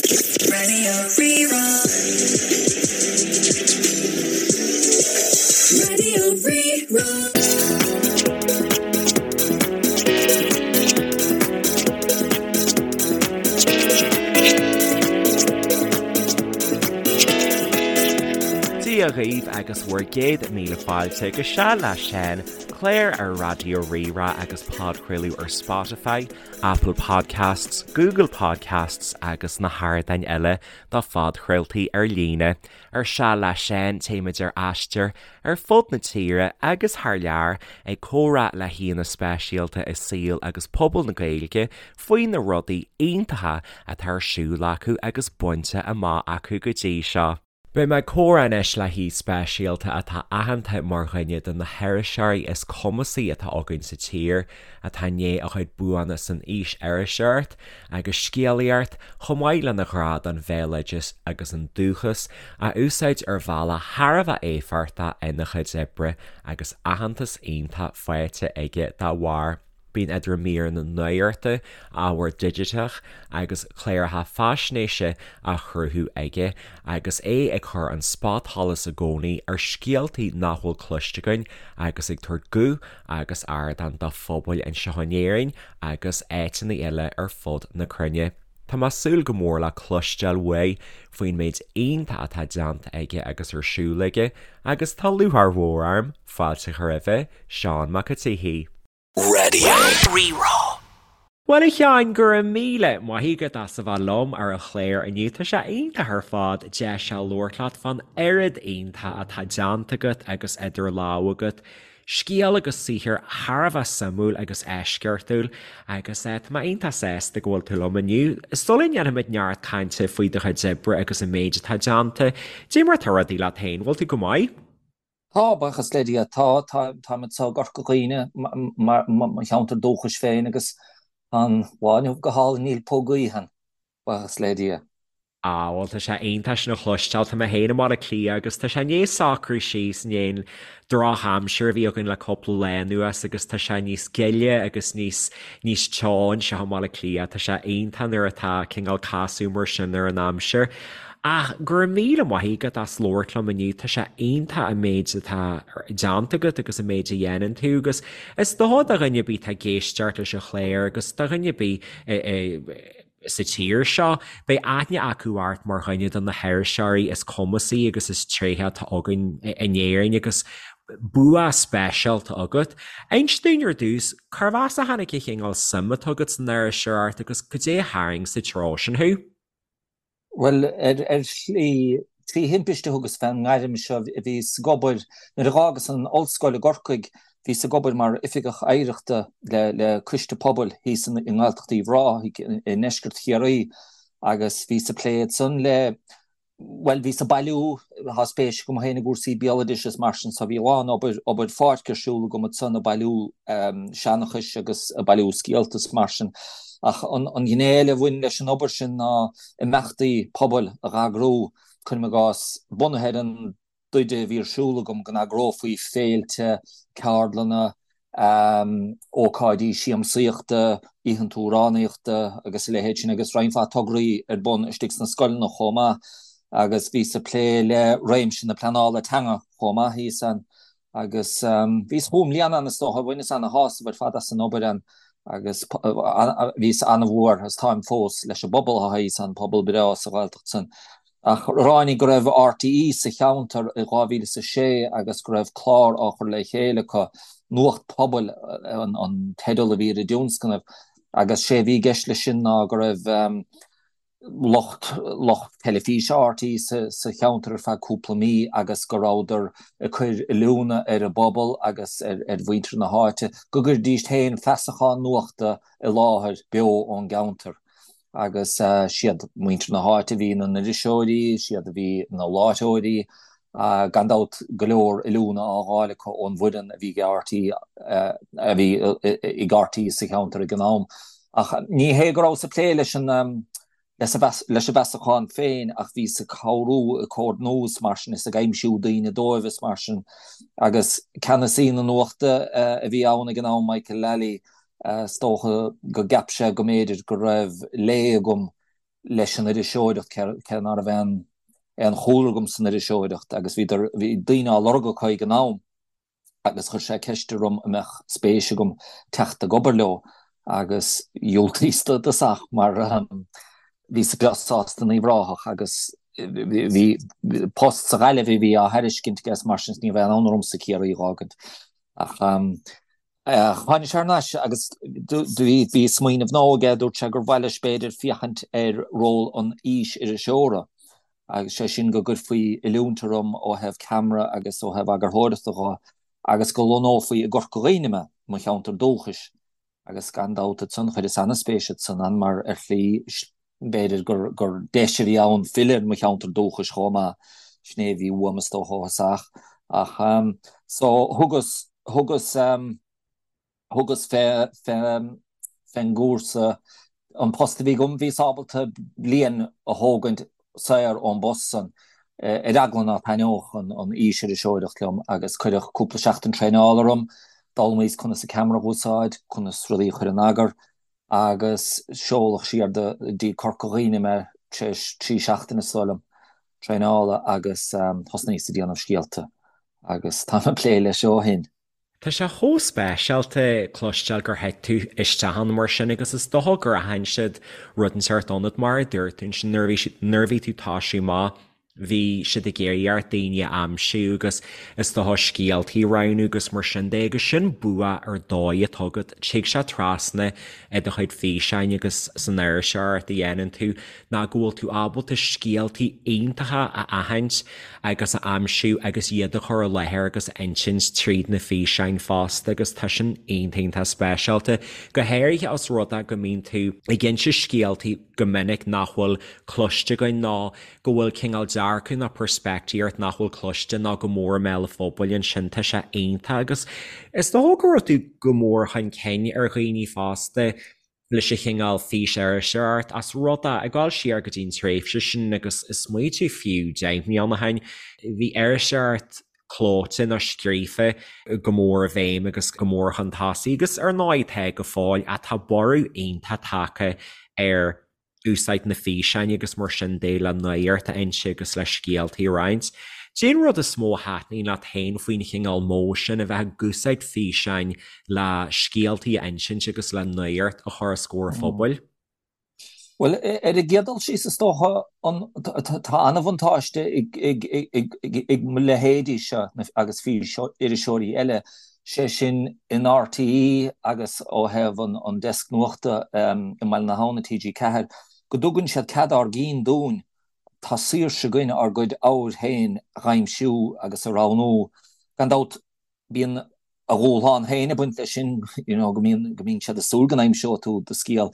Radio Rí-Rá. Radio Rí-Rá. Dia dhaoibh agus bhur gcéad míle fáilte go Seal le Seán, clár ar Raidió Rí-Rá agus podchraoladh ar Spotify, Apple Podcasts, Google Podcasts agus na hardáin eile do phodchraoltaí ar líne. Ar Seal le Seán, téimid ar aistear ar fud na tíre agus thar lear ag comhrá le haíonna speisialta i saol agus pobal na Gaeilge faoi na rudaí iontacha atá ar siúl acu agus bainte amach acu go dtí seo. Beidh mé ag comhrá anois le haoi speisialta atá aitheanta mar dhuine de na hiriseoirí is cumasaí atá againn sa tír, atá i ndiaidh a chuid buanna san fhís-iriseoireacht agus scéalaíocht, chomh maith lena ghrá don bhéaloideas agus an dúchas, a úsáid ar bhealach thar a bheith éifeachtach ina chuid oibre agus aitheantas iontach faighte aige dá bharr. Bíonn idir míreanna nuachta, ábhar digiteach agus cláracha faisnéise á chruthú aige agus é ag cur an spotsholas i gcónaí ar scéaltaí nach bhfuil cloiste againn agus ag tabhairt guth agus ardán do phobail anseo in Éirinn agus áiteanna eile ar fud na cruinne. Tá mé ag súil go mór le cloisteáil uaidh faoin méid iontach atá déanta aige agus ar siúl aige agus tá lúcháir mhór orm fáilte a chur roimhe, Seán Mac an tSíthigh. Radio Rí-Rá. Bhuel a Sheáin, go raibh míle maith agat as a bheith liom ar an chlár inniu. Tá sé iontach ar fad deis a labhairt leat fán oiread iontach atá déanta agat agus idir lámha agat. Scéal agus saothar thar a bheith suimiúil agus eisceachtúil agus tá mé iontach sásta go bhfuil tú liom inniu. Sula ndéanfaimid neart cainte faoi do chuid oibre agus an méid atá déanta, cad é mar atá rudaí leat féin, bhfuil tú go maith? Tá, buíochas le Dia, tá. Táim anseo i gCorca Dhuibhne, mo cheantar dúchais féin, agus tá an lá inniu go hálainn, níl puth gaoithe ann, buíochas le Dia. Á, bhuel, tá sé iontach sin a chloisteáil. Tá mé féin i mBaile Átha Cliath agus tá sé i ndiaidh socrú síos i ndiaidh an drochaimsir a bhí againn le cúpla lá anuas agus tá sé níos gile agus níos, níos teo anseo i mBaile Átha Cliath. Tá sé iontach nuair atá cineál casadh mar sin ar an aimsir. Ach go raibh míle maith agat as labhairt liom inniu, tá sé iontach an méid atá déanta agat agus an méid a dhéanann tú agus is dócha do dhuine ar bith atá ag éisteacht leis an chlár agus do dhuine ar bith sa tír seo, beidh aithne acu ort mar dhuine de na hiriseoirí is cumasaí agus is tréithe atá againn in Éirinn agus bua speisialta agat. Inis dúinn ar dtús, cárb as a tháinig an chineál suim atá agat san iriseoireacht agus cad é a tharraing sa treo sin thú? Bhuel, ar shlí, trí thimpiste a thugas fén ngairm seo. Bhíos ag obair, nuair a dh'fhágas an ollscoil i gCorcaigh, bhíos ag obair mar oifigeach oidhreachta le coiste pobail thíos i nGaeltacht Uíbh Ráthaigh i ndeisceart Chiarraí agus bhíos ag plé ansan le, bhuel, bhíos ag bailiú, tá spéis agam féin i gcúrsaí béaloidis is mar sin so bhí a lán obair, obair pháirce ar siúl agam ansan ag bailiú seanchais agus ag bailiú scéalta is mar sin. Ach an ghné eile a bhain leis an obair sin ná imeachtaí pobail a dh'eagrú, cuirim i gcás, bunaithe ar an dtaighde a bhí ar siúl agam, go n-eagrófaí féilte, ceardlanna, ócáidí siamsaíochta, oícheanta amhránaíochta agus a leithéid sin agus roinnt mhaith tograí ar bun istigh sna scoileanna chomh maith agus bhíos ag plé le réimse na pleanála teanga chomh maith thíos ann. Agus bhíos chúig mbliana ann is dócha, bhaineas ana-shásamh ar fad as an obair ann agus bhíos ana-mhór agus táim fós leis an bpobal atá thíos ann, pobal breá sa Ghaeltacht san. Ach ráinig go raibh RTÉ sa cheantar i 2006 agus go raibh clár á chur le chéile acu, Nuacht Pobail an teideal a bhí ar an dtionscnamh, agus sé a bhí i gceist leis sin ná go raibh lucht lucht teilifíse RTÉ sa cheantar ar feadh cúpla mí agus go rabhadar ag cur oiliúna ar an bpobal agus ar mhuintir na háite go gcuirfidís féin feasachán nuachta i láthair beo ón gceantar. Agus siad muintir na háite a bhí ina n-iriseoirí, siad a bhí ina láithreoirí, gan dabht go leor oiliúna á fháil acu ón bhfoireann a bhí ag RTÉ a bhí ag RTÉ sa cheantar ag an am. Ach ní hé go rabhas ag plé leis an leis an bhfeasachán féin ach bhíos ag cabhrú, ag comhordnú is mar sin is ag aimsiú daoine dóibh is mar sin. Agus ceannasaí na nuachta a bhí ann ag an am, Michael Lally, is dócha go gceap sé go mb'fhéidir go raibh lé agam. leis an iriseoireacht, cé ná raibh aon aon chúlra agam san iriseoireacht agus bhí bhí daoine á lorg acu ag an am agus chuir sé ceist orm an mbeadh spéis agam teacht ag obair leo agus dhiúltaíos i dtosach mar bhíos breá sásta in Uíbh Ráthach agus bhí post sa Ghaillimh a bhí á thairiscint aige mar sin ní raibh aon fhonn ormsa Ciarraí a dh'fhágaint ach Tháinig sé thar n-ais agus bhí smaoineamh nua aige, dúirt sé gur mhaith leis b'fhéidir féachaint ar ról an fhís-iriseora agus sé sin go gcuirfí oiliúint orm ó thaobh ceamara agus ó thaobh eagarthóireachta dho agus go lonnófaí i gCorca Dhuibhne mé, mo cheantar dúchais. Agus gan dabht ansan chuireas an-spéis ansan ann mar ar shlí b'fhéidir gur deis a bhí ann filleadh ar mo cheantar dúchais chomh maith, sin é a bhí uaim is dócha ó thosach. Ach so thugas thugas thugas fé fén gcúrsa, an post a bhí agam, bhíos ábalta bliain a thógaint saor ón bpost san, ar eagla ná taitneodh an an fhís-iriseoireacht liom agus cuireadh cúpla seachtain traenála orm, d'fhoghlaimíos conas an ceamara a dh'úsáid, conas rudaí a chur in eagar agus seoladh siar do dtí Corca Dhuibhne mé tar éis 3 seachtaine is dóigh liom traenála agus thosnaíos ag déanamh scéalta agus táim ag plé leis ó shin. Tá sé chomh speisialta cloisteáil gur thit tú isteach ann mar sin agus is dócha gur aithin siad rud inteacht ionat mar a dúirt tú ansin nuair a bhí nuair a bhí tú ag toisiú amach bhí siad ag iarraidh ort daoine a aimsiú agus is dócha scéaltaí a roghnú agus mar sin de agus sin bua ar dóigh atá agat. Tig sé trasna i do chuid físeáin agus san iriseoireacht a dhéanann tú ná go bhfuil tú ábalta scéaltaí iontacha a aithint agus a aimsiú agus iad a chur i láthair agus a insint tríd na físeáin fosta agus tá sin iontach iontach speisialta, go háirithe os rud é go mbíonn tú ag inse scéaltaí go minic nach bhfuil cloiste againn nó go bhfuil cineál dearcadh nó peirspictíocht nach bhfuil cloiste nó go mór i mbéal an phobail ansin, tá sé iontach agus is dócha go raibh tú go mór chun cinn ar dhaoine fosta leis an chineál fís-iriseoireacht as rud é, ag dul siar go dtí an tréimhse sin agus is smaoitiú fiú 10 mbliana ó shin, bhí iriseoireacht clóite nó scríofa go mór i bhfeidhm agus go mór chun tosaigh agus ar ndóigh tá go fóill ach tá borradh iontach tagtha ar úsáid na físeáin agus mar sin de le nuacht a inse agus le scéaltaí a roinnt. Cén rud is mó a thaitníonn leat féin faoin chineál modh sin, a bheith ag úsáid físeáin le scéaltaí a insint agus le nuacht a chur os comhair an phobail? Bhuel, ar an gcéad dul síos, is dócha, tá an-bhuntáiste ag mo leithéidí seo agus fís-iriseoirí eile, sé sin in RTÉ agus ó thaobh an deasc nuachta i mBaile na hAbhann i TG4, go dtugann siad cead ár gcinn dúinn. Tá saoirse againn ár gcuid ábhair féin a dh'aimsiú agus a roghnú. Gan dabht, bíonn a dhúshlán féin ag baint leis sin, you know, go mbíonn, go mbíonn siad ag súil go n-aimseoidh tú do scéal.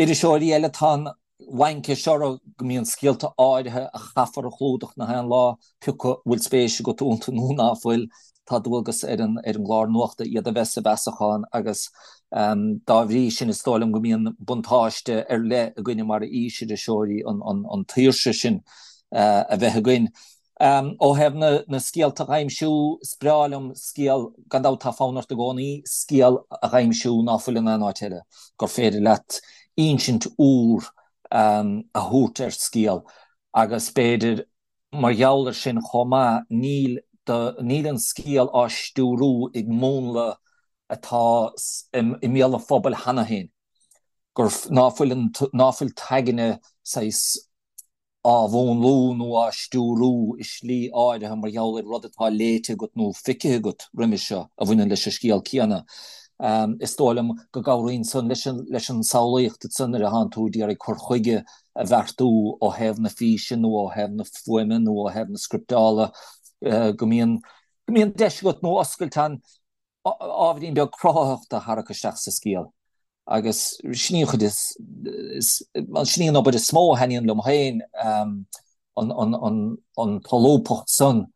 Iriseoirí eile, tá an laincis orthu go mbíonn scéalta áirithe a chaithfear a chlúdach nach aon lá, pé acu bhfuil spéis agat iontu nó ná fuil, tá dualgas ar an ar an gclár nuachta iad a bheith sa bhfeasachán agus dá bhrí sin is dóigh liom go mbíonn buntáiste ar leith againne mar fhís-iriseoirí an an an tsaoirse sin a bheith againn. Ó thaobh na scéalta a dh'aimsiú, is breá liom scéal, gan dabht tá fonn ort i gcónaí scéal a dh'aimsiú ná fuil in aon áit eile, gur féidir leat insint úr a thabhairt ar scéal agus b'fhéidir mar gheall ar sin chomh maith níl do, níl an scéal á stiúrú ag múnla atá i mbéal an phobail cheana féin, gur, ná fuil an, ná fuil t'aigne saghas. á mhúnlú nó á stiúrú i slí áirithe mar gheall ar rud atá léite agat nó feicthe agat roimhe seo a bhaineann leis an scéal céanna. Is dóigh liom go gcabhraíonn san leis an samhlaíocht ansan nuair atánn tú ag iarraidh cur chuige a bheartú ó thaobh na físe nó ó thaobh na fuaime nó ó thaobh na scripteála go mbíonn go mbíonn deis agat nó oscailt ann ábhairín beag cruthaitheachta a tharrac isteach sa scéal. Agus sin í an chuid is, sin í an obair is mó a thaitníonn liom féin, an tsolúbthacht san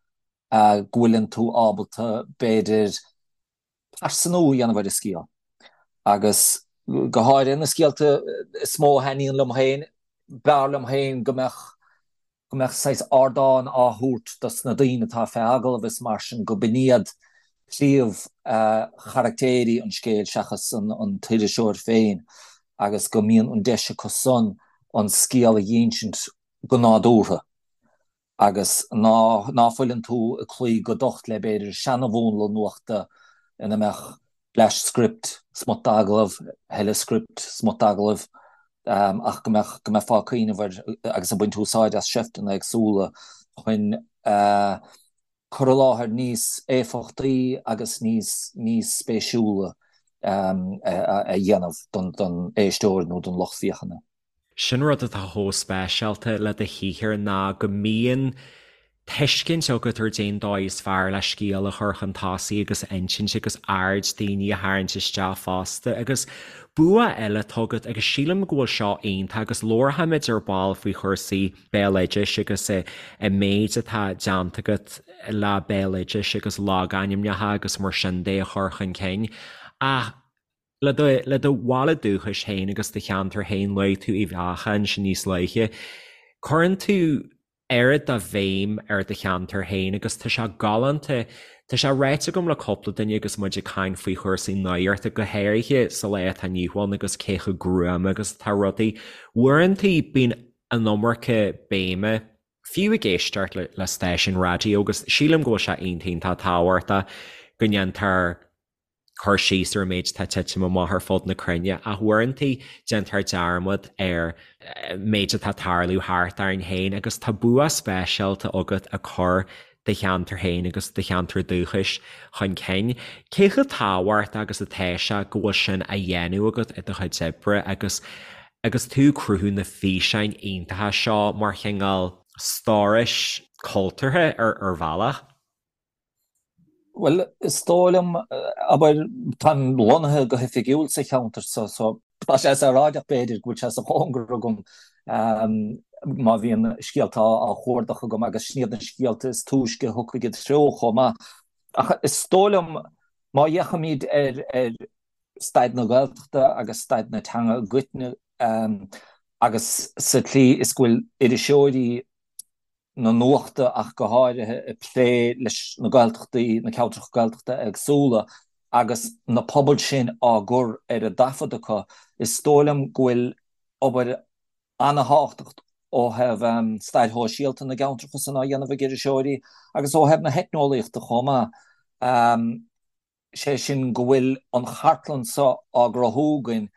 go bhfuileann tú ábalta, b'fhéidir, pearsanú a dhéanamh ar an scéal. Agus go háirithe na scéalta is mó a thaitníonn liom féin, b'fhearr liom féin go mbeadh go mbeadh saghas ardán á thabhairt dos na daoine atá fé agallamh is mar sin, go b'in iad príomh charactéirí an scéil seachas an t-iriseoir féin agus go mbíonn an deis acu san. an scéal a dh'insint go nádúrtha agus ná ná fuileann tú ag cloí go docht le b'fhéidir seana-mhúnla nuachta ina mbeadh bleaist script, smut d'agallamh, a thuilleadh script, smut d'agallaimh, ach go mbeadh go mbeifeá ag cuimhneamh ar agus ag baint úsáid as seifteanna éagsúla chun cur i láthair níos éifeachtaí agus níos níos spéisiúla a dhéanamh don don éisteoir nó don lucht féachana. Sin rud atá chomh speisialta le do shaothar ná go mbíonn tuiscint agat ar cén dóigh is fearr le scéal a chur chun tosaigh agus a insint agus aird daoine a tharraingt isteach fosta. Agus bua eile atá agat agus sílim go bhfuil seo iontach agus labharfaimid ar ball faoi chúrsaí béaloidis agus an méid atá déanta agat le béaloidis agus logainmneacha agus mar sin de a chur chun cinn ach Le do, le do bhaile dúchais féin agus do cheantar féin, luaigh tú Uíbh Eachach ansin níos luaithe. Cuireann tú oiread de bhéim ar do cheantar féin agus tá sé galánta, tá sé ráite agam le cúpla duine agus muid ag caint faoi chúrsaí nuachta, go háirithe sa lá atá inniu ann agus cé chomh gruama agus atá rudaí. Uaireanta bíonn an iomarca béime, fiú ag éisteacht le stáisiún raidió agus sílim go bhfuil sé iontach iontach tábhachtach go ndéantar cur síos ar an méid atá ag titim amach ar fud na cruinne, ach uaireanta déantar dearmad ar an méid atá ag tarlú thart orainn féin agus tá bua speisialta agat ag cur do cheantar féin agus do cheantar dúchais chun cinn. Cé chomh tábhachtach agus atá sé go bhfuil sin á dhéanamh agat i do chuid oibre agus agus tú ag cruthú na físeáin iontacha seo mar chineál stórais cultúrtha ar bhealach? Bhuel, is dóigh liom, abair, táim lonnaithe go hoifigiúil sa cheantar so, so tá sé saoráideach b'fhéidir go bhfuil sé sa chóngar agam má bhíonn scéalta á chuardach agam agus sin iad na scéalta is túisce a thiocfaidh i dtreo chomh maith. Ach is dóigh liom má fhéachaimid ar ar staid na Gaeltachta agus staid na teanga i gcoitinne agus sa tslí is go bhfuil iriseoirí na nuachta ach go háirithe, ag plé leis na Gaeltachtaí, na ceantracha Gaeltachta éagsúla agus na pobail sin á gcur ar a dtaifead acu. Is dóigh liom go bhfuil obair an-thábhachtach ó thaobh stair shóisialta na gceantracha san á dhéanamh ag iriseoirí agus ó thaobh na heitneolaíochta chomh maith. sé sin go bhfuil an chartlann seo á gcruthú againn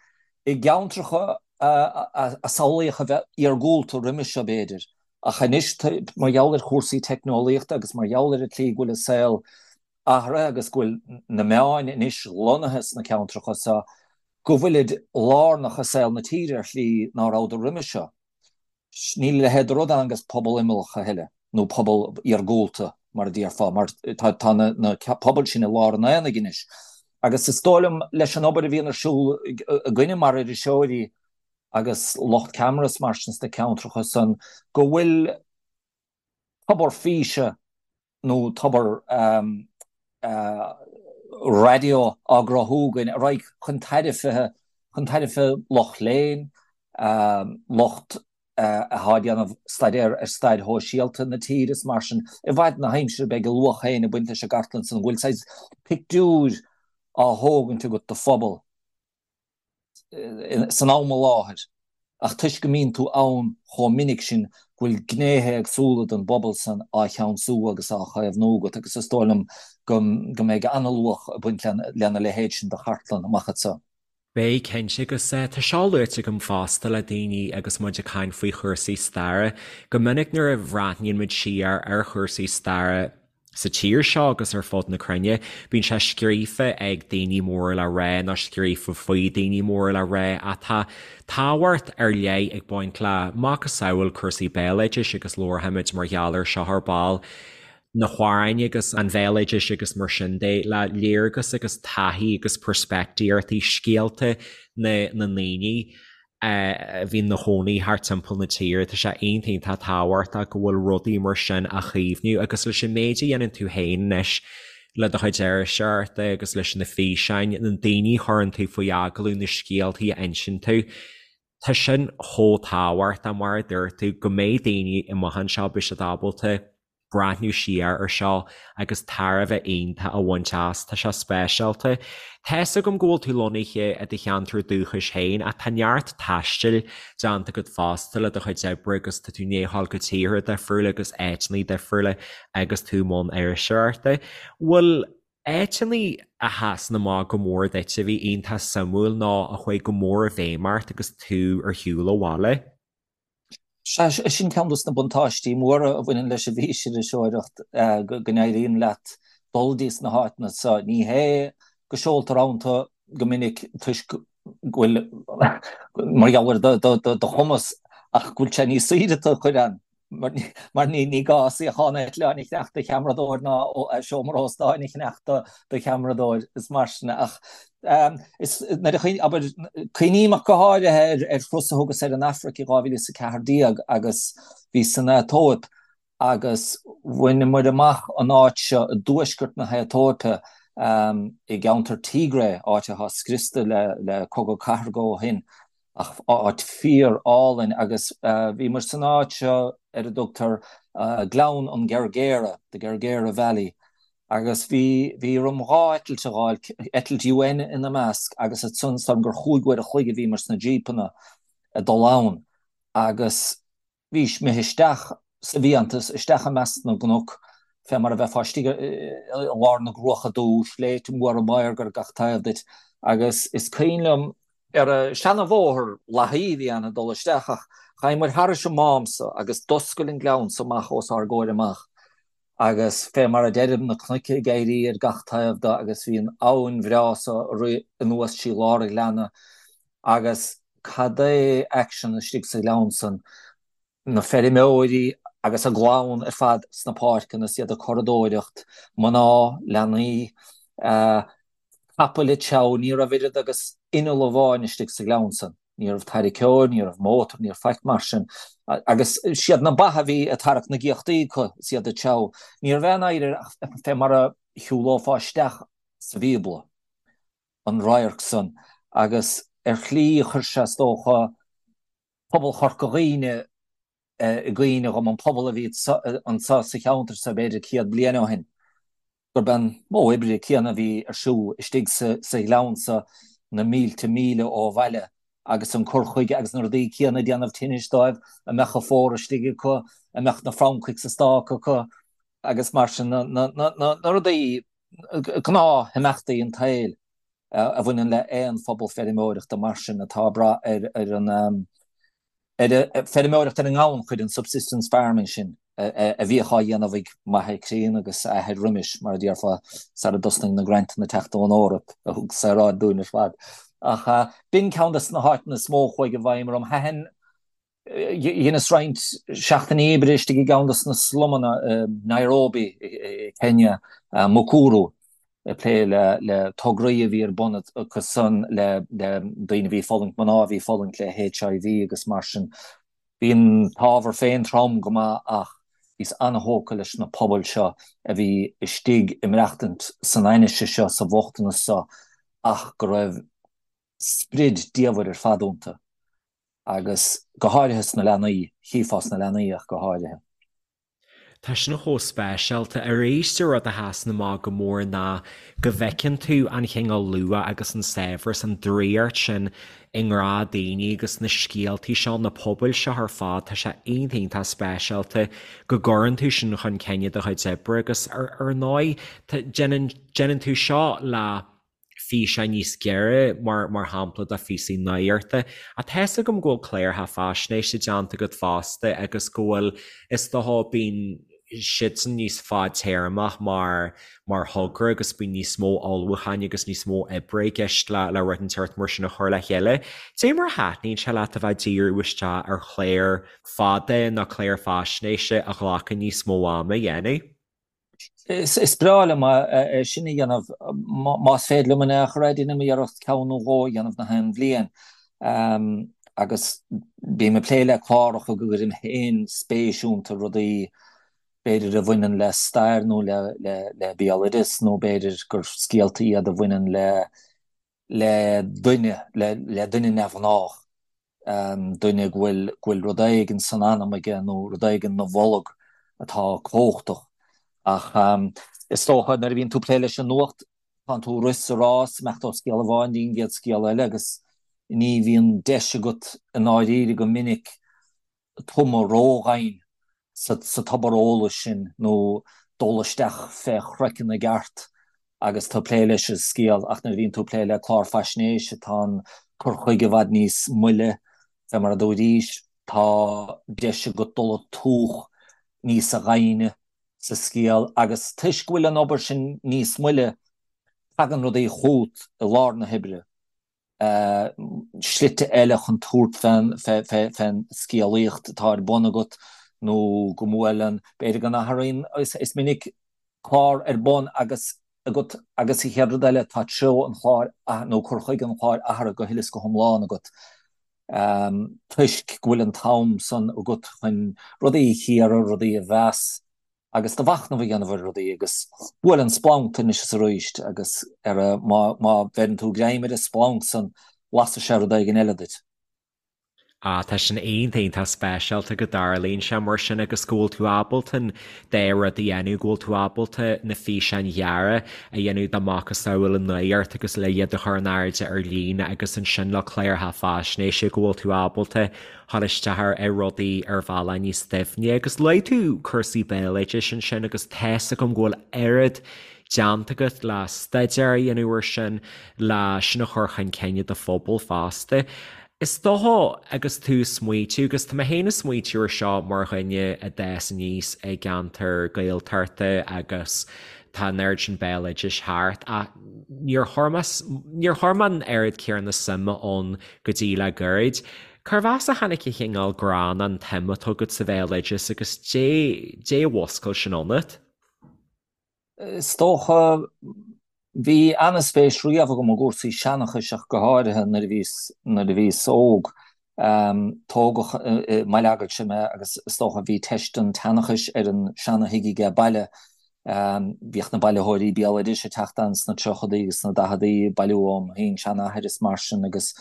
i gceantracha a samhlaíodh a bheith iargúlta roimis seo, b'fhéidir, ach anois, mar gheall ar chúrsaí teicneolaíochta agus mar gheall ar an tslí go bhfuil an saol athraithe agus go bhfuil na meáin anois lonnaithe sna ceantracha seo, go bhfuilid lárnach i saol na tíre ar shlí ná rabhadar roimis seo. Níl a leithéid de rud ann agus pobal imeallach a thuilleadh, nó pobal iargúlta, mar a déarfá, mar tá na pobail sin i lár an aonaigh anois. Agus is dóigh liom, leis an obair a bhíonn ar siúl againne mar iriseoirí agus lucht ceamara is mar sin sna ceantracha san, go bhfuil tobar físe nó tobar raidió á gcruthú againn a raghaidh chun tairbhe, chun tairbhe lucht léinn, lucht atá ag déanamh staidéar ar stair shóisialta na tíre is mar sin. I bhfad na haimsire beidh a luach féin ag baint leis an gcartlann san go bhfuil saghas pictiúir á thógaint agat de phobal. san am i láthair, ach toisc go mbíonn tú ann chomh minic sin go bhfuil gnéithe éagsúla den bpobal san á cheansú agus á chaomhnú agat agus is dóigh liom go mbeidh an-luach ag baint lena leithéid sin de chartlann amach anseo. Beidh, cinnte, agus tá seo luaite agam fosta le daoine agus muid ag caint faoi chúrsaí staire, go minic nuair a bhreathnaíonn muid siar ar chúrsaí staire, Sa tír seo agus ar fud na cruinne, bíonn sé scríofa ag daoine móra le rá nó scríofa faoi daoine móra le rá ach tá tábhacht ar leith ag baint le macasamhail cúrsaí béaloidis agus labharfaimid mar gheall ar seo ar ball, na hamhráin agus an bhéaloidis agus mar sin de, le léargas agus taithí agus peirspictíochtaí, scéalta na ndaoine. a bhí ina chónaí thart timpeall na tíre. Tá sé iontach iontach tábhachtach go bhfuil rudaí mar sin á chaomhnú agus leis an méid a dhéanann tú féin anois le do chuid iriseoireachta agus leis na físeáin, na daoine a chuireann tú faoi agallamh, na scéaltaí a insíonn tú, tá sin chomh tábhachtach mar a dúirt tú go mbeidh daoine amach anseo, beidh siad ábalta. breathnú siar ar seo agus tairbhe iontach a bhaint as. Tá sé speisialta. Tá's agam go bhfuil tú lonnaithe i do cheantar dúchais féin ach tá neart taistil déanta agat fosta le do chuid oibre agus tá tú i ndiaidh a ghabháil go tíortha difriúla agus áiteanna difriúla agus tú i mbun iriseoireachta. Bhfuil áiteanna a sheasann amach go mór duit a bhí iontach suimiúil nó a chuaigh go mór i bhfeidhm ort agus tú ar shiúl ó bhaile? Sea, sin ceann dos na buntáistí móra a bhaineann leis an bhfísiriseoireacht, go n-éiríonn leat dul dtí sna háiteanna seo. Ní hé go seoltar ann tú go minic toisc go bhfuil, mar gheall ar do chumas, ach go bhfuil sé níos saoire tú a chur ann. Mar ní gá suíochán eitleáin a cheannach do cheamaradóir ná seomra óstáin a cheannach do cheamaradóir is mar sin. Ach is nuair a abair, cuimhním ach go háirithe ar thuras a thugas ar an Afraic i 2014 agus bhíos san Aetóip agus bhaineamar amach an áit seo i dtuaisceart na hAetóipe i gceantar Tigray, áit atá scriosta le cogadh cathartha ó shin. Ach áit fíor álainn agus bhíomar san áit seo ar a dtugtar Gleann an Gergera, the Gergera Valley, agus bhí bhí orm 2 eitilt a fháil, eitilt UN ina measc agus ansan is dóigh liom gur chúig uair a chloig a bhíomar sna jípeanna ag dul ann agus Bhís imithe isteach sa bhfiántas, isteach i measc na gcnoc, fé mar a bheifeá istigh i lár na gCruacha Dubha, sléibhte móra maorga ar gach taobh duit, agus is cuimhin liom, ar an seana-bhóthar lathaí a bhí ann ag dul isteach, ach ghabhamar thairis an mám so agus d'oscail an gleann so amach os ár gcomhair amach, agus fé mar a deirim, na cnoic ag éirí ar gach taobh de agus bhí an abhainn bhreá so ag rith anuas trí lár an ghleanna agus cad é aicsean istigh sa ghleann san, na feirmeoirí agus a gclann ar fad sna páirceanna is iad ag curadóireacht, mná, leanaí, capaill ag treabhadh, ní raibh oiread agus inneall amháin istigh sa ghleann san. Ní raibh tarraiceoir, ní raibh mótar, ní raibh faic mar sin. Agus siad na ba a bhí ag tarrac na gcíochtaí acu is iad ag treabhadh. Ní raibh aon oidhre ach fé mar a shiúlófá isteach sa Bhíobla, an radharc san. Agus ar shlí chuir sé, is dócha, pobal Chorca Dhuibhne i gcuimhne dhom, an pobal a bhí anso sa cheantar so b'fhéidir 100 bliain ó shin. gurb é an modh oibre céanna a bhí ar siúl istigh sa ghleann so na mílte míle ó bhaile agus an cur chuige agus na rudaí céanna ag déanamh tinnis dóibh, a mbeadh an fómhar istigh acu, a mbeadh na francaigh sa stác acu agus mar sin, na rudaí, gnáthimeachtaí an tsaoil a bhaineann le aon phobal feirmeoireachta mar sin atá ag brath ar an. ar an feirmeoireacht ar an ngannchuid, an subsistence farming sin a bhíodh á dhéanamh ag m'athair críonna agus a athair roimis, mar a déarfá, sara dtosnaigh na grantanna teacht ón Eoraip a thug saoráid dúinn ar fad. Ach b'in ceann de na háiteanna is mó a chuaigh i bhfeidhm orm. Thaitin, dheineas roinnt seachtainí oibre istigh i gceann de na slumanna i Nairobi i Kenya, Mukuru. ag plé le tograí a bhí ar bun acu san le daoine a bhí ag fulaingt, mná a bhí ag fulaingt le HIV agus mar sin. Bhí an t-ábhar féin trom go maith ach bhíos an-thógtha leis na pobail seo a bhí istigh ag maireachtaint san ainnise seo, sa bhochtanas seo ach go raibh sprid diamhair ar fad iontu agus go háirithe sna leanaí, chífeá sna leanaí ach go háirithe. Tá sin chomh speisialta. Arís, an rud a sheasann amach go mór ná go bhfeiceann tú an chineál luach agus an saibhreas, an draíocht sin i ngnáthdhaoine agus na scéaltaí seo, na pobail seo ar fad. Tá sé iontach, iontach speisialta go gcuireann tú sin chun cinn i do chuid oibre agus ar ndóigh, déanann, déanann tú seo le físeáin níos giorra, mar mar shampla do phíosaí nuachta. Ach tá fhios agam go bhfuil cláracha faisnéise déanta agat fosta agus go bhfuil, is dócha, bíonn siadsan níos fadtéarmach mar mar thogra agus bíonn níos mó ullmhúcháin agus níos mó oibre i gceist le le rud inteacht mar sin a chur le chéile. Cad é mar a thaitníonn sé leat a bheith ag díriú isteach ar chlár fada nó clár faisnéise a ghlacann níos mó ama a dhéanamh? Is breá liom é sin a dhéanamh. Más féidir liom in aon chor é, déanaim iarracht ceann nó dhó a dhéanamh na haon bhliain. Agus bím ag plé le cláracha go gcuirim féin spéis iontu, rudaí b'fhéidir a bhaineann le stair nó le béaloideas nó b'fhéidir gur scéalta iad a bhaineann le le duine, le duine neamhghnách, duine go bhfuil, go bhfuil rud éigin san anam aige nó rud éigin 'na bholg. atá cumhachtach. Ach is dócha nuair a bhíonn tú ag plé leis an nuacht, tánn tú ag rith sa rás, imeacht ó scéal amháin dtí an gcéad scéal eile agus ní bhíonn deis agat i ndáiríre go minic tumadh ródhoimhin sa tobar eolais sin nó dul isteach fé chraiceann i gceart agus tú ag plé leis an scéal ach nuair a bhíonn tú ag plé le clár faisnéise tá an cur chuige i bhfad níos moille, fé mar a dúraís, tá deis agat dul ag tóch níosa dhoimhne sa scéal agus toisc go bhfuil an obair sin níos moille tagann rudaí chugat i lár na hoibre. slite eile chun tabhairt fén scéalaíocht atá ar bun agat nó go mbuaileann, b'fhéidir go n-athraíonn, is minic clár ar bun agus agat agus an chéad rud eile tá treo an chláir nó cur chuige an chláir athraithe go huile is go hiomlán agat toisc go bhfuil an t-am san agat chun rudaí a chíoradh, rudaí a mheas. agus do mhachnamh a dhéanamh ar rudaí agus buaileann splanc anois is arís agus ar a, má, má bheireann tú greim ar an splanc san, lasfaidh sé rud éigin eile duit. Ah, tá sin iontach, iontach speisialta go dtarlaíonn sé mar sin agus go bhfuil tú ábalta an dá rud a dhéanamh, go bhfuil tú ábalta na físeáin ghearra a dhéanamh dá macasamhail an nuacht agus le iad a chur in airde ar líne agus ansin le cláracha faisnéise go bhfuil tú ábalta dhul isteach ar rudaí ar bhealach níos doimhne. Agus luaigh tú cúrsaí béaloidis ansin agus tá's agam go bhfuil oiread déanta agat le staidéar a dhéanamh ar sin, le sin a chur chun cinn i do phobal fosta. Is dócha agus tú ag smaoitiú, agus tá mé féin ag smaoitiú ar seo mar dhuine a d'fhás aníos i gceantar Gaeltachta agus tá an oiread sin béaloidis thart ach níor chuir mé, níor chuir mé an oiread céanna suime ann go dtí le gairid. Cérbh as a tháinig an chineál grá nó an tsuim atá agat sa bhéaloideas agus dé dé a mhuscail sin ionat? Is dócha, bhí ana-spéis riamh agam i gcúrsaí seanchais ach go háirithe nuair a bhíos nuair a bhíos óg. Tógadh i mBaile Eagailse mé agus is dócha bhí teist an tseanchais ar an seana-thigh aige baile. Bhíodh na bailitheoirí béaloidis ag teacht ann sna tríochadaí agus sna daicheadaí ag bailiú óm shin-seanathair is mar sin agus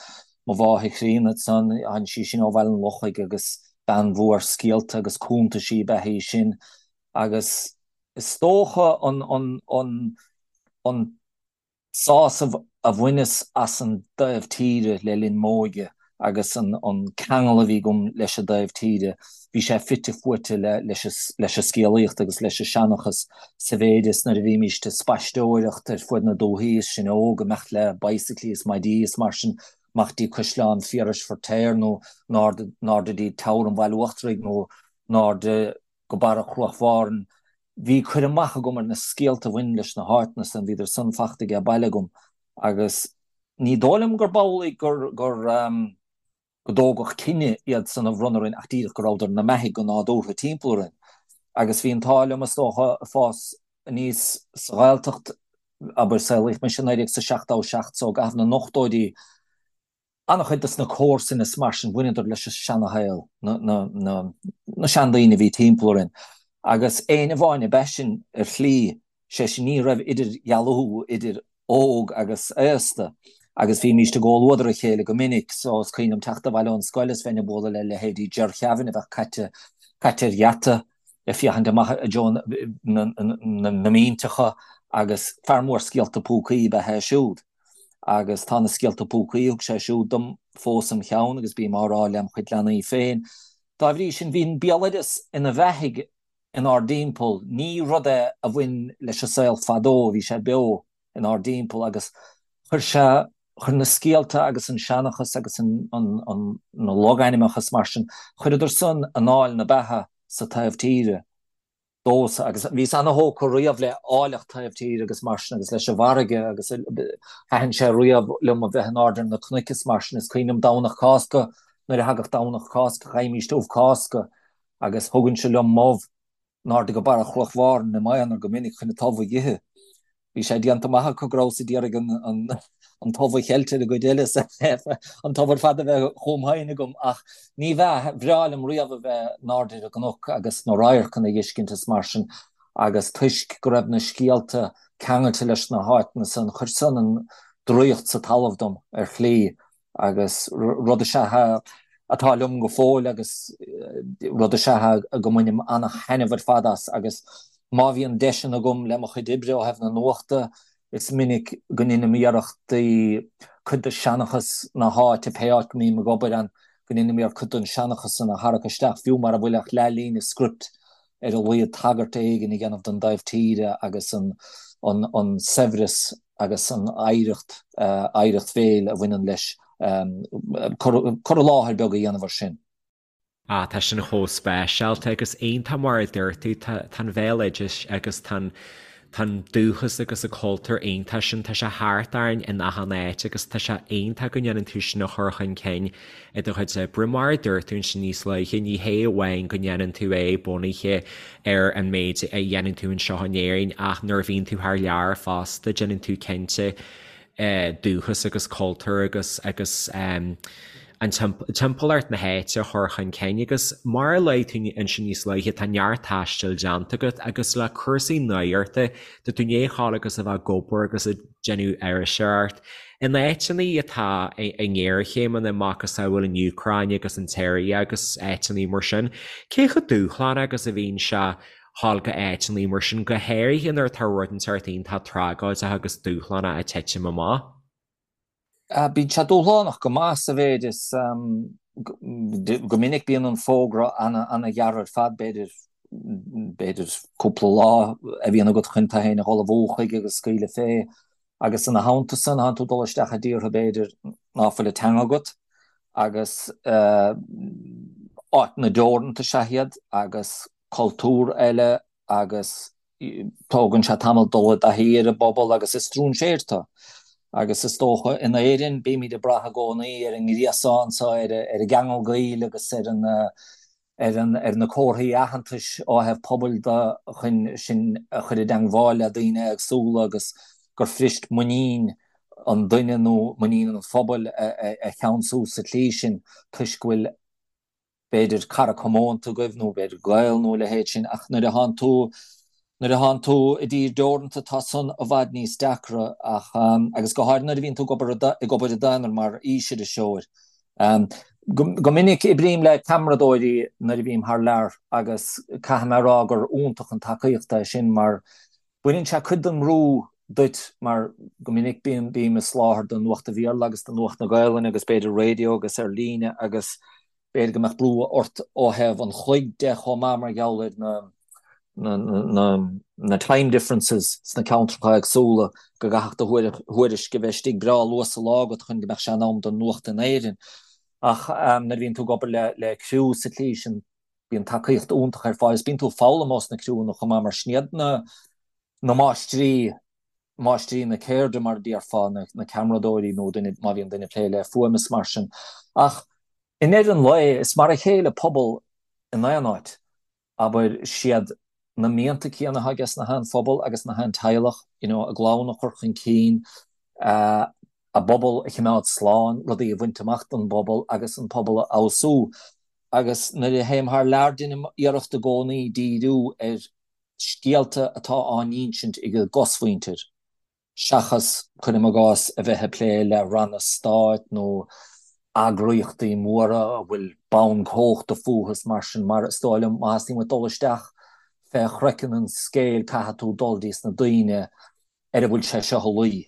mo mháthair chríonna ansan, tháinig sí sin ó Bhaile an Lochaigh agus bean mhór scéalta agus cuntaisí ab ea í sin agus is dócha an an an an sásamh a bhaineas as an dtaobh tíre le linn m'óige agus an ceangal a bhí agam leis an dtaobh tíre, bhí sé fite fuaite leis an scéalaíocht agus leis an seanchas sa mhéid is nuair a bhímíst ag spaisteoireacht ar fuaid na dúthaí is sinn óg, imeacht le bicyclí is maidí is mar sin, amach dtí Caisleán Phiarais Feirtéar nó in airde dtí Teamhair an Bhaile Uachtaraigh nó in airde go barra Chruach Mhàrain. Bhí cur amach agam ar na scéalta a bhain leis na háiteanna san, bhíodar san fachta aige baile agam agus ní dóigh liom gurb amhlaidh gur gur go dtógadh cine iad san a bhronnadh orainn ach díreach go rabhadar ina mbeathaidh go nádúrtha timpeall orainn. Agus bhí an t-ádh liom is dócha fás aníos sa Ghaeltacht, abair saolaíodh mise i 1977 so i gcaitheamh na n-ochtóidí, An-chuid dos na comharsain is mar sin, bhaineadar leis an seanashaol, na seandaoine a bhí timpeall orainn. Agus éinne amháin ab ea sinn ar shlí, sé sin ní raibh idirdhealú idir óg agus aosta agus bhímíst i gcomhluadar a chéile go minic. So is cuimhin liom teacht abhaile ón scoil is bheinn ag bualadh le leithéidí Ger Kevin a bheadh caite caite ar gheata ag féachaint amach i dtreo na mínteacha agus fear mór scéalta púcaí ab ea é siúd. Agus tá na scéalta púcaí a thug sé siúd dom fós im cheann agus bím á rá lem chuid leanaí féin. Dá bhrí sin, bhí an béaloideas ina bheathaidh inár dtimpeall. Ní rud é a bhain leis an saol fadó, bhí sé beo inár dtimpeall agus chuir sé, chuir na scéalta agus an seanchas agus an, an, na logainmneacha is mar sin, chuireadar san anáil na beatha sa taobh tíre. domhsa agus bhíos ana-thógtha riamh le áilleacht taobh tíre agus mar sin agus leis an bhfarraige agus thaitin sé riamh liom a bheith in airde ar na cnoic is mar sin. Is cuimhin liom Domhnach Cásca, nuair a thagadh Domhnach Cásca gheighimíst ubh Cásca agus thugainnse liom m'ubh in airde go barra Chruach Mhàrain i m'aonar go minic chun an t-ubh a dh'ithe. Bhí sé déanta amach acu go rabhas ag iarraidh an t-ubh a cheilt ar an gcuid eile, an t-ubh ar fad a bheith chugam féin agam, ach ní bheadh, bhreá liom riamh a bheith in airde ar an gcnoc agus na radharcanna a dh'fheiscint is mar sin, agus toisc go raibh na scéalta ceangailte leis na háiteanna san, chuir san an draíocht sa talamh dom, ar shlí, agus rud is ea. atá liom go fóill agus rud is ea go mbainim ana-thaitneamh ar fad as agus má bhíonn deiseanna agam le mo chuid oibre ó thaobh na nuachta, is minic go ndeinim iarrachtaí cuid de seanchas na háite, pé áit go mbím ag obair ann, go ndeinim iarracht cuid den seanchas san a tharrac isteach, fiú mara bhfuil ach leathlíne script ar a laghad tagairt éigin a dhéanamh don dtaobh tíre agus an an saibhreas agus an oidhreacht, oidhreacht bhéil a bhaineann leis, cur i láthair beag a dhéanamh ar sin. Ah, tá sin chomh speisialta agus iontach mar a dúirt tú, tá an bhéaloideas agus tá an tá an dúchas agus an cultúr iontach sin, tá sé thart orainn in achan áit agus tá sé iontach go ndéanann tú sin a chur chun cinn i do chuid oibre. Mar a dúirt tú ansin níos luaithe, ní hé amháin go ndéanann tú é bunaithe ar an méid a dhéanann tú anseo in Éirinn ach nuair a bhíonn tú thar lear fosta déanann tú cinnte dúchas agus cultúr agus agus an timpeallacht na háite a chur chun cinn agus mar a luaigh tú ansin níos luaithe tá neart taistil déanta agat agus le cúrsaí nuachta tá tú i ndiaidh a ghabháil agus a bheith ag obair agus ag déanamh iriseoireacht in áiteanna atá i ngéarchéimeanna macasamhail an Úcráin agus an tSiria agus áiteanna mar sin. Cé chomh dúshlánach agus a bhíonn sé ghabháil go áiteanna mar sin, go háirithe nuair atá rud inteacht iontach tragóideach agus dúshlánach ag titim amach? Bíonn sé dúshlánach go maith sa mhéid is go minic bíonn an fógra ana-ghearr ar fad, b'fhéidir b'fhéidir cúpla lá a bhíonn agat chun tú féin a dh'ullmhú chuige agus scaoileadh fé. Agus ina theannta san, tánn tú ag dul isteach i dtíortha b'fhéidir ná fuil an teanga agat agus áiteanna deoranta is ea iad agus cultúr eile agus tógann sé tamall dul i dtaithí ar an bpobal agus is stróinséir tú. Agus is dócha in Éirinn bímid ag brath i gcónaí ar an ngríosán so, ar an gceangal gaoil agus ar an ar an ar na comharthaí aitheantais ó thaobh pobail de chun sinn a chur i dteangmháil le daoine éagsúla agus gur fuirist muinín an duine nó muinín an phobail a cheansú sa tslí sin toisc go bhfuil b'fhéidir cara comónta agaibh nó b'fhéidir gaol nó a leithéid sin ach nuair a thánn tú nuair a thánn tú i dtír deoranta tá san i bhfad níos deacra ach agus go háirithe nuair a bhíonn tú ag obair ag obair i d'aonar mar fhísiriseoir. Go minic oibrím le ceamaradóirí nuair a bhím thar lear agus caithfidh mé a rá gur iontach an tacaíocht é sin mar Baineann sé cuid den mbrú duit mar go minic bíonn, bím ag soláthar do Nuacht an Bhéarla agus do Nuacht na Gaelainne agus b'fhéidir raidió agus ar líne agus b'fhéidir go mbeadh brú ort ó thaobh an chloig de chomh maith mar gheall ar na, na, na, na time differences sna ceantracha éagsúla go gcaithfeadh do thuairisc a bheith istigh breá luath sa lá agat chun go mbeadh sé in am don nuacht in Éirinn. Ach nuair a bhíonn tú ag obair le, le criú sa tslí sin, Bíonn tacaíocht iontach ar fáil agus bíonn tú ag foghlaim ós na criúnna chomh maith mar sin iad na na máistrí, máistrí na ceirde mar a déarfá, na na ceamaradóirí nó duine, má bhíonn duine ag plé le fuaim is mar sin. Ach i ndeireadh an lae is mar a chéile pobal in aon áit. Abair, siad na mianta céanna atá aige na haon phobal agus na haon teaghlach, you know, a gclann a chur chun cinn, a bpobal a choimeád slán, rudaí a bhaint amach don bpobal agus an pobal a fheabhsú. Agus nuair a théim thar lear deinim iarracht i gcónaí díriú ar scéalta atá á n-insint ag an gcosmhuintir, seachas, cuirim i gcás, a bheith ag plé le ranna stáit nó eagraíochtaí móra a bhfuil bonn cumhachta fúthu is mar sin, mar is dóigh liom má theastaíonn uait dul isteach fé chraiceann an scéil caithfidh tú dul dtí sna daoine ar a bhfuil sé seo a luí,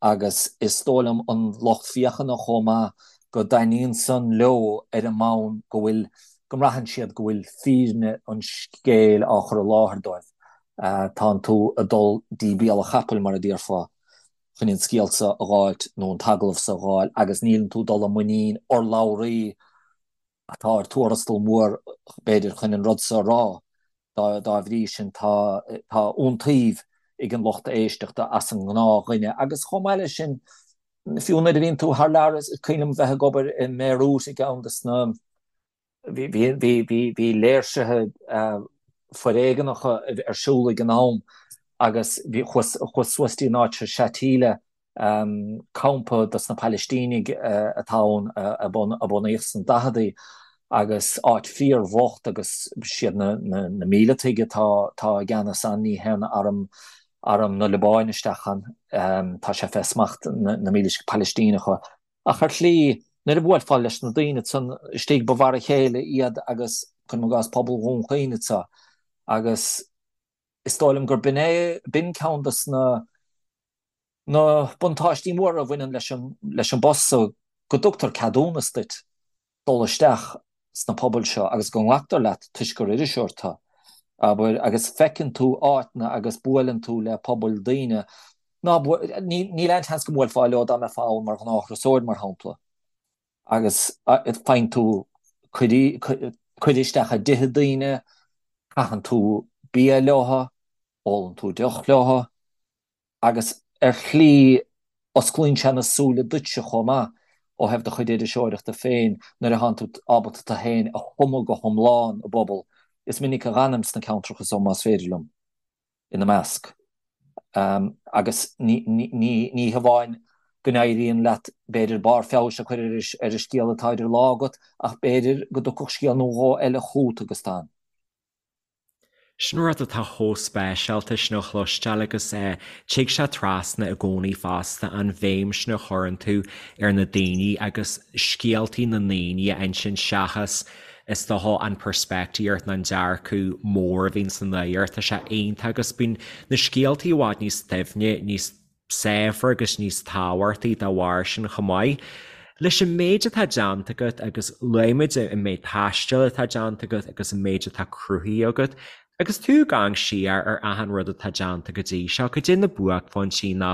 agus is dóigh liom an lucht féachana chomh maith, go dtaitníonn san leo ar an mbonn go bhfuil, go mbraitheann siad go bhfuil fírinne an scéil á chur i láthair dóibh. Tánn tú ag dul dtí béal an chapaill, mar a déarfá, chun an scéal so a dh'fháilt nó an t-agallamh so a dh'fháil agus níleann tú ag dul i muinín urlabhraí atá ar tuarastal mór, b'fhéidir, chun an rud so a rá. Dá bhrí sin, tá iontaoibh ag an lucht éisteachta as an ngnáthdhuine. Agus chomh maith leis sin, fiú nuair a bhíonn tú thar lear, is cuimhin liom bheith ag obair i mBeirut i gceann de na, bhí léirsithe foréigeanacha ar siúl ag an am agus chuas suas dtí an áit seo, Shatila, campa dos na Palaistínigh atá ann a bunaíodh sna daicheadaí agus áit fíor-bhocht agus siad na míleataigh atá i gceannas ann, ní théann arm arm na Liobáine isteach ann, tá sé fé smacht na mílitigh Palaistíneacha. Ach ar shlí. Nuair a bhuailfeá leis na daoine ansan istigh ba mhar a chéile iad agus, cuirim i gcás, pobal Dhún Chaoin anseo agus is dóigh liom gur b'in é, b'in ceann dos na na buntáistí móra a bhaineann leis an leis an bpost so, go dtugtar ceadúnas duit dul isteach sna pobail seo agus go nglactar leat toisc gur iriseoir tú, abair, agus feiceann tú áiteanna agus buaileann tú le pobail daoine ná níl aon tseans go mbuailfeá leo dá mbeifeá ann mar ghnáth-thurasóir, mar shampla, agus faigheann tú cuireadh isteach i dtithe daoine, caitheann tú bia leo, ólann tú deoch leo. agus ar shlí osclaíonn sé na súile duitse chomh maith ó thaobh do chuid iriseoireachta féin nuair a thánn tú ábalta tú féin a thumadh go hiomlán i bpobal. Is minic a dh'fhanaim sna ceantracha so más féidir liom, ina measc. Agus ní hamháin go n-éiríonn leat b'fhéidir barr feabhais a chur ar an scéal atá idir lámha agat ach b'fhéidir go dtiocfadh scéal nó dhó eile chugat agus tú ann. Sin rud atá chomh speisialta sin a chloisteáil agus tig sé trasna i gcónaí fosta, an bhéim sin a chuireann tú ar na daoine agus scéaltaí na ndaoine a insint seachas is dócha an peirspictíocht nó an dearcadh mór a bhíonn sa nuacht. Tá sé iontach agus bíonn na scéaltaí i bhfad níos doimhne, níos saibhre agus níos tábhachtaí dá bharr sin chomh maith. Leis an méid atá déanta agat agus luaigh muid an méid taistil atá déanta agat agus an méid atá cruthaithe agat, agus tú ag amharc siar ar achan rud atá déanta go dtí seo, cad é na buaicphointí nó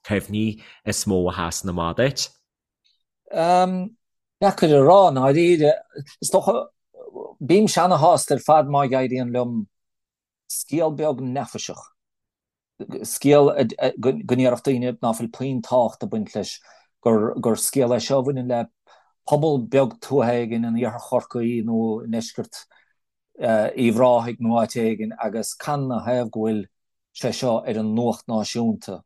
cuimhní is mó a sheasann amach duit? Deacair a rá, i ndáiríre. Is dócha, bímse ana-shásta ar fad má éiríonn liom scéal beag neafaiseach, scéal go ndéarfadh daoine ná fuil puinn tábhacht ag baint leis, gur scéal é seo a bhaineann le pobal beag tuaithe éigin in iarthar Chorcaí nó i ndeisceart Uíbh Ráthaigh nó áit éigin agus canathaobh go bhfuil sé seo ar an nuacht náisiúnta.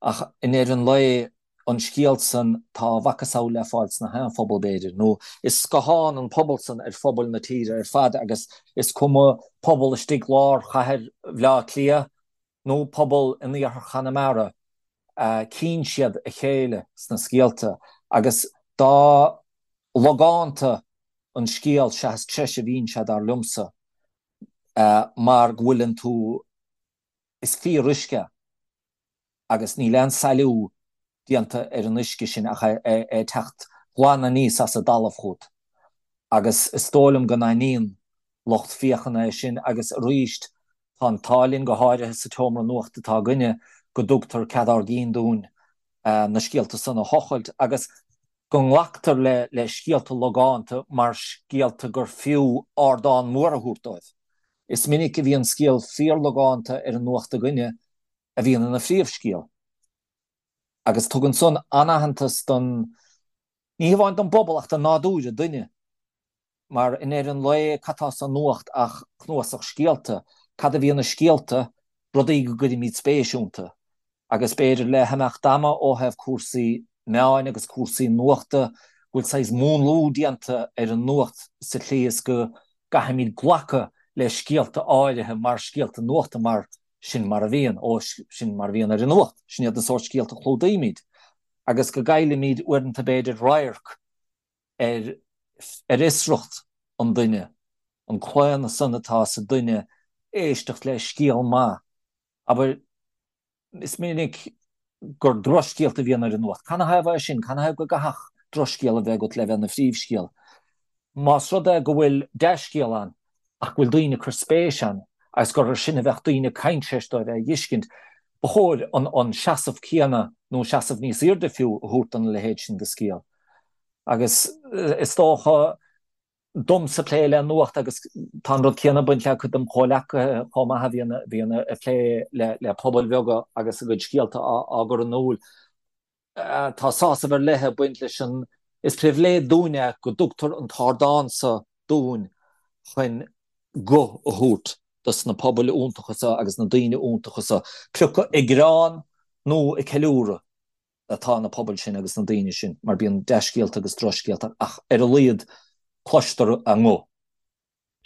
Ach i ndeireadh an lae, an scéal san, tá a mhacasamhail le fáil sna haon phobal, b'fhéidir, nó is scáthán an pobal san ar phobail na tíre ar fad agus is cuma pobal istigh lár chathair Bhaile Átha Cliath nó pobal in iarthar Chonamara, cíonn siad a chéile sna scéalta agus dá logánta an scéal seachas treise a bhíonn sé, dar liomsa, mar go bhfuileann tú, is fíoruisce agus níl aon sailiú déanta ar an uisce sin ach é ag teacht glan aníos as an dtalamh chugat agus is dóigh liom go n-aithníonn lucht féachana é sin agus arís tá an t-ádh linn go háirithe sa tseomra nuachta atá againne go dtugtar cead ár gcinn dúinn na scéalta san a thochailt agus go nglactar le scéalta logánta mar scéalta gur fiú ardán mór a thabhairt dóibh. Is minic a bhíonn scéal fíorlogánta ar an nuacht againne a bhíonn ina phríomhscéal. Agus tugann san an-aitheantas don, ní hamháin don bpobal ach do nádúr an duine. Mar i ndeireadh an lae, cad tá sa nuacht ach cnuasach scéalta? Cad a bhíonn i scéalta? Rudaí go gcuirimid spéis iontu. Agus b'fhéidir le himeacht ama ó thaobh cúrsaí meáin agus cúrsaí nuachta, go bhfuil saghas múnlú déanta ar an nuacht sa tslí is go gcaithfimid glacadh le scéalta áirithe mar scéalta nuachta mar sin mar a bhíonn, ó sin mar a bhíonn ar an nuacht, sin iad na sórt scéalta a chlúdaímid. Agus go gcaillimid uaireanta b'fhéidir radharc ar ar fhiosracht an duine, an claonadh san atá sa duine éisteacht le scéal maith. Abair, is minic gur drochscéalta a bhíonn ar an nuacht. Canathaobh é sin? Canathaobh go gcaithfeadh drochscéal a bheith agat le bheith ina phríomhscéal? Más rud é go bhfuil dea-scéal ann ach go bhfuil daoine ag cur spéis ann agus gur ar sin a bheadh daoine ag caint tar éis dóibh é a dh'fheiscint, ba chóir an seasamh céanna nó seasamh níos airde fiú a thabhairt dona leithéid sin de scéal. Agus is dócha domsa plé le nuacht agus tá an rud céanna ag baint le cuid dem chomhleacaithe chomh maith a bhíonn a bhíonn ag plé le le pobail bheaga agus a gcuid scéalta á á gcur in iúl. Tá sásamh ar leith ag baint leis an Is pribhléid dúinn é go dtugtar an t-ardán so dúinn chun guth a thabhairt dos na pobail iontacha so agus na daoine iontacha so, pé acu ag gearán nó ag ceiliúradh atá na pobail sin agus na daoine sin, mar bíonn dea-scéalta agus drochscéalta ach ar a laghad cloistear a nguth.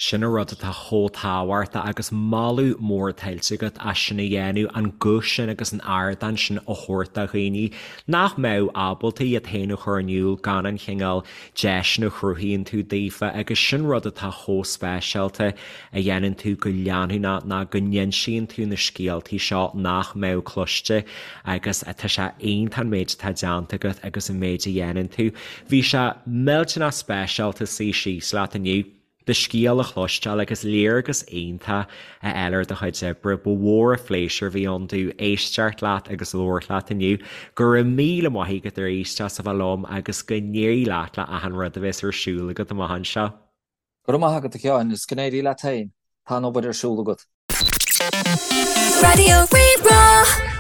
Sin an rud atá chomh tábhachtach agus moladh mór tuillte agat as sin a dhéanamh, an guth sin agus an ardán sin a thabhairt do dhaoine nach mbeadh ábalta iad féin a chur in iúl gan an chineál deiseanna a chruthaíonn tú daofa agus sin rud atá chomh speisialta a dhéanann tú go leanúnach ná go n-insíonn tú na scéaltaí seo nach mbeadh cloiste agus tá sé iontach an méid atá déanta agat agus an méid a dhéanann tú. Bhí sé millteanach speisialta suí síos leat inniu, do scéal a chloisteáil agus léargas iontach a fháil ar do chuid oibre. Ba mhór an phléisiúr a bhí ann domh éisteacht leat agus labhairt leat inniu. Go raibh míle maith agat arís as a bheith liom agus go n-éirí leat le achan rud a bheas ar siúl agat amach anseo. Go raibh maith agat a Sheáin agus go n-éirí leat féin. Tá an obair ar siúl agat. Raidió Rí-Rá.